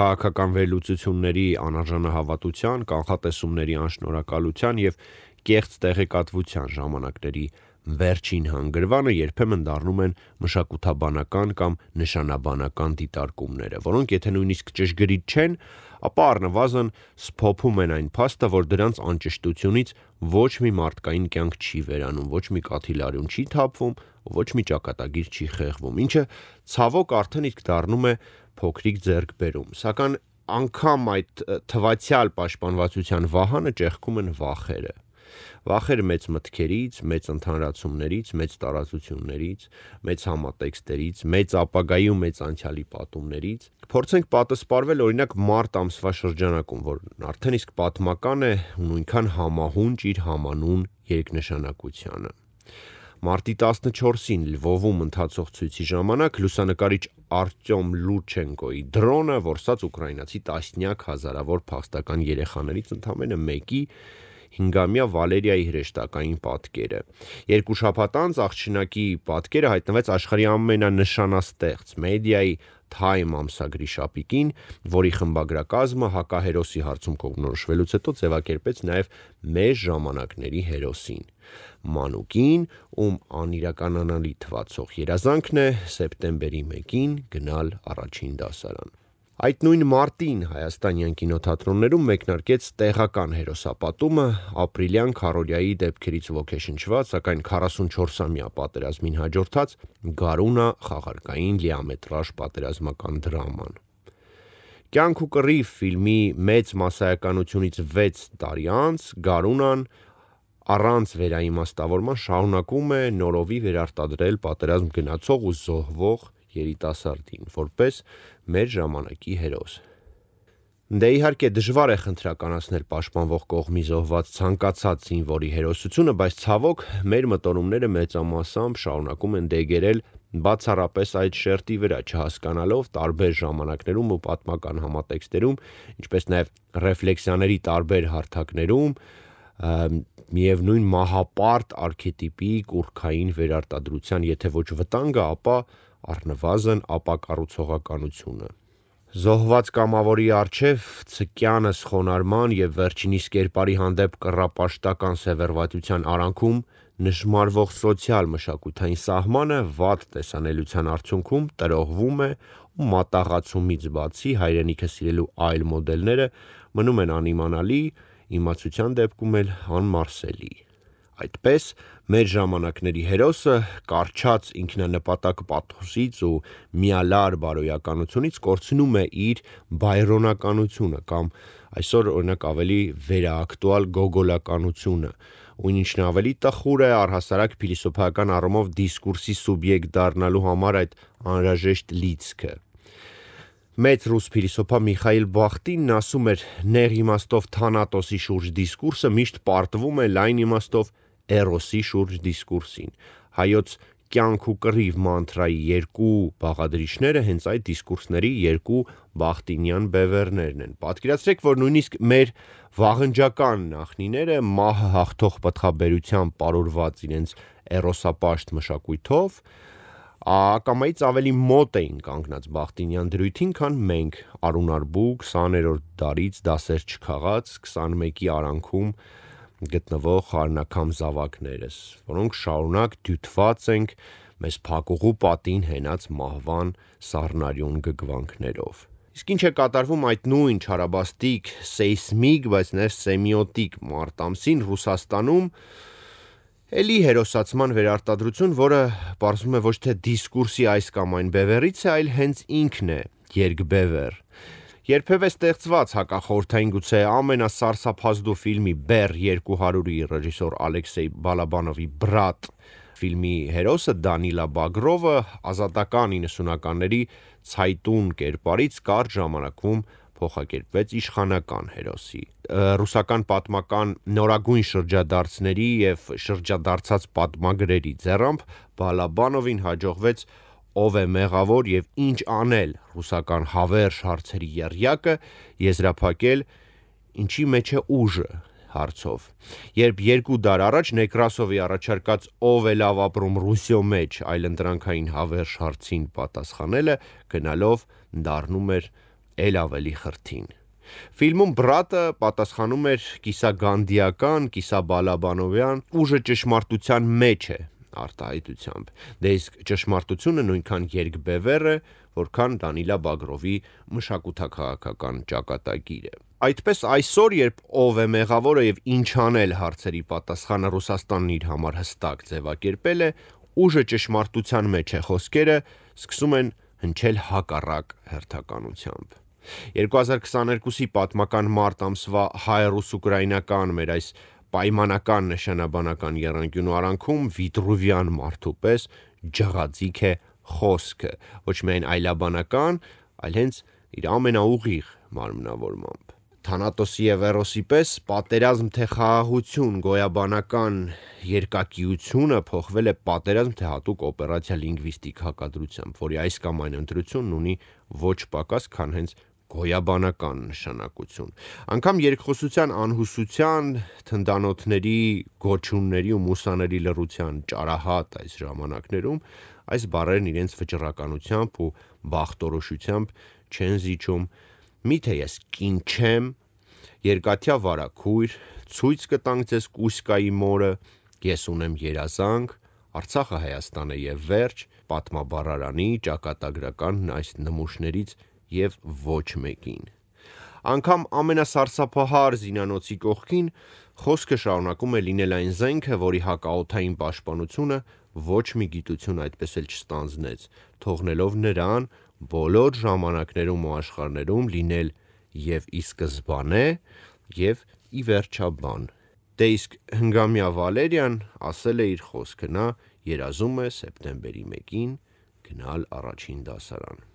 քաղաքական վերլուծությունների անարժանահավատության, կանխատեսումների անշնորհակալության և կեղծ տեղեկատվության ժամանակների վերջին հանգրվանը երբեմն դառնում են մշակութաբանական կամ նշանաբանական դիտարկումները, որոնք եթե նույնիսկ ճշգրիտ չեն, ապա առնվազն սփոփում են այն փաստը, որ դրանց անճշտությունից ոչ մի մարդկային կյանք չի վերանում, ոչ մի կաթիլարյուն չի թափվում, ոչ մի ճակատագիր չի խեղվում, ինչը ցավոք արդեն իսկ դառնում է փոքրիկ ձեռքբերում, սակայն անգամ այդ թվացյալ պաշտպանվածության վահանը ճեղքում են վախերը։ Վախեր մեծ մտքերից, մեծ ընդհանրացումներից, մեծ տարածություններից, մեծ համատեքստերից, մեծ ապագայի ու մեծ անցյալի պատումներից։ Փորձենք պատասպարվել օրինակ մարտ ամսվա շրջանակում, որն արդեն իսկ պատմական է ու նույնքան համահունչ իր համանուն երկնշանակությանը։ Մարտի 14-ին Լվովում ընթացող ցույցի ժամանակ լուսանկարիչ Արտյոմ Լուրչենկոյի դրոնը որսաց ուկրաինացի տասնյակ հազարավոր փախստական երեխաներից ընդամենը մեկի 5-ամյա Վալերիայի հրեշտակային պատկերը։ 2 շաբաթ անց աղջնակի պատկերը հայտնվեց աշխարհի ամենանշանաստեղծ մեդիայի Time ամսագրի շապիկին, որի խմբագրակազմը հակահերոսի հարցում կողմնորոշվելուց հետո ձևակերպեց նաև մեր ժամանակների հերոսին։ Մանուկին, ում անիրականանալի թվացող երազանքն է սեպտեմբերի 1-ին գնալ առաջին դասարան։ Այդ նույն մարտին հայաստանյան կինոթատրոններում մեկնարկեց տեղական հերոսապատումը ապրիլյան քարորիայի դեպքերից ոգեշնչված, սակայն 44-ամյա պատերազմին հաջորդած Գարունա խաղարկային լիամետրաժ պատերազմական դրաման։ Կյանք ու կռիվ ֆիլմի մեծ մասսայականությունից 6 տարի անց Գարունան առանց վերաիմաստավորման շարունակում է նորովի վերարտադրել պատերազմ գնացող ու զոհվող երիտասարդին, որպես մեր ժամանակի հերոս։ Դե իհարկե դժվար է խնդրականացնել պաշտպանվող կողմի զոհված ցանկացած զինվորի հերոսությունը, բայց ցավոք մեր մտորումները մեծամասամբ շարունակում են դեգերել բացառապես այդ շերտի վրա, չհասկանալով տարբեր ժամանակներում ու պատմական համատեքստերում, ինչպես նաև ռեֆլեքսիաների տարբեր հարթակներում միևնույն մահապարտ արքետիպի կուռքային վերարտադրության եթե ոչ վտանգը, ապա առնվազն ապակառուցողականությունը։ Զոհված կամավորի առջև ցկյանս խոնարհման և վերջինիս կերպարի հանդեպ կռապաշտական սևեռվածության արանքում նժմարվող սոցիալ-մշակութային սահմանը վատ տեսանելիության արդյունքում տրոհվում է ու մատաղացումից բացի հայրենիքը սիրելու այլ մոդելները մնում են անիմանալի, իմացության դեպքում էլ անմարսելի։ Այդպես մեր ժամանակների հերոսը կառչած ինքնանպատակ պաթոսից ու միալար բարոյականությունից կորցնում է իր բայրոնականությունը կամ այսօր օրինակ ավելի վերաակտուալ գոգոլականությունը, ու ինչն ավելի տխուր է առհասարակ փիլիսոփայական առումով դիսկուրսի սուբյեկտ դառնալու համար այդ անհրաժեշտ լիցքը։ Մեծ ռուս փիլիսոփա Միխայիլ Բախտինն ասում էր. «Նեղ իմաստով Թանատոսի շուրջ դիսկուրսը միշտ պարտվում է լայն իմաստով Էրոսի շուրջ դիսկուրսին»։ Հայոց կյանք ու կռիվ մանտրայի երկու բաղադրիչները հենց այդ դիսկուրսների երկու բախտինյան բևեռներն են։ Պատկերացրեք, որ նույնիսկ մեր վաղնջական նախնիները մահը հաղթող պտղաբերությամբ պարուրված իրենց էրոսապաշտ մշակույթով ակամայից ավելի մոտ էին կանգնած բախտինյան դրույթին, քան մենք արունարբու 20-րդ դարից դասեր չքաղած 21-ի արանքում գտնվող խառնակամ զավակներս, որոնք շարունակ դյութված ենք մեզ փակուղու պատին հենած մահվան սառնարյուն գգվանքներով։ Իսկ ինչ է կատարվում այդ նույն չարաբաստիկ, սեյսմիկ, բայց նաև սեմիոտիկ մարտ ամսին Ռուսաստանում, էլի հերոսացման վերարտադրություն, որը պարզվում է ոչ թե դիսկուրսի այս կամ այն բևեռից է, այլ հենց ինքն է երկբևեռ։ Երբևէ ստեղծված հակախորհրդային գուցե ամենասարսափազդու ֆիլմի Բեռ 200-ի ռեժիսոր Ալեքսեյ Բալաբանովի Բրատ ֆիլմի հերոսը Դանիլա Բագրովը ազատական 90-ականների ցայտուն կերպարից կարճ ժամանակում փոխակերպվեց իշխանական հերոսի։ Ռուսական պատմական նորագույն շրջադարձների և շրջադարձած պատմագրերի ձեռամբ Բալաբանովին հաջողվեց «Ով է մեղավոր և ինչ անել» ռուսական հավերժ հարցերի եռյակը եզրափակել «Ինչի մեջ է ուժը» հարցով, երբ 2 դար առաջ Նեկրասովի առաջարկած «Ով է լավ ապրում Ռուսիո մեջ» այլընտրանքային հավերժ հարցին պատասխանելը գնալով դառնում էր էլ ավելի խրթին։ Ֆիլմում Բրատը պատասխանում էր կիսագանդիական, կիսաբալաբանովյան ուժը ճշմարտության մեջ է արտահայտությամբ, դե իսկ ճշմարտությունը նույնքան երկբևեռ է, որքան Դանիլա Բագրովի մշակութաքաղաքական ճակատագիրը։ Այդպես այսօր, երբ ով է մեղավորը եւ ինչ անել հարցերի պատասխանը Ռուսաստանն իր համար հստակ ձևակերպել է, ուժը ճշմարտության մեջ է խոսքերը սկսում են հնչել հակառակ հերթականությամբ։ 2022-ի պատմական մարտ ամսվա հայ-ռուս-ուկրաինական մեր այս պայմանական նշանաբանական եռանկյունու արանքում Վիտրուվյան մարդու պես ջղաձիգ է խոսքը, ոչ միայն այլաբանական, այլ հենց իր ամենաուղիղ մարմնավորմամբ։ Թանատոսի եւ Էրոսի պես պատերազմ թե խաղաղություն գոյաբանական երկակիությունը փոխվել է պատերազմ թե հատուկ օպերացիա լինգվիստիկ հակադրությամբ, որի այս կամ այն ընտրությունն ունի ոչ պակաս, քան հենց գոյաբանական նշանակություն։ Անկամ երկխոսության անհուսության, թնդանոթների, գոչյունների ու մուսաների լռության ճարահատ այս ժամանակներում այս բառերն իրենց վճռականությամբ ու բախտորոշությամբ չեն զիջում։ Միթե ես կին չեմ, երկաթյա վարագույր, ցույց կտանք ձեզ Կուսկայի մորը, ես ունեմ երազանք, Արցախը Հայաստան է եւ վերջ, պատմաբառարանի ճակատագրական այս նմուշներից եւ ոչ մեկին։ Անկամ ամենասարսափահար զինանոցի կողքին խոսքը շարունակում է լինել այն զենքը, որի հակաօդային պաշտպանությունը ոչ մի գիտություն այդպես էլ չստանձնեց, թողնելով նրան բոլոր ժամանակներում ու աշխարհներում լինել եւ ի սկզբանե եւ ի վերջաբան։ Դե իսկ Հնգամյա Վալերիան ասել է իր խոսքը, նա երազում է սեպտեմբերի 1-ին գնալ առաջին դասարան։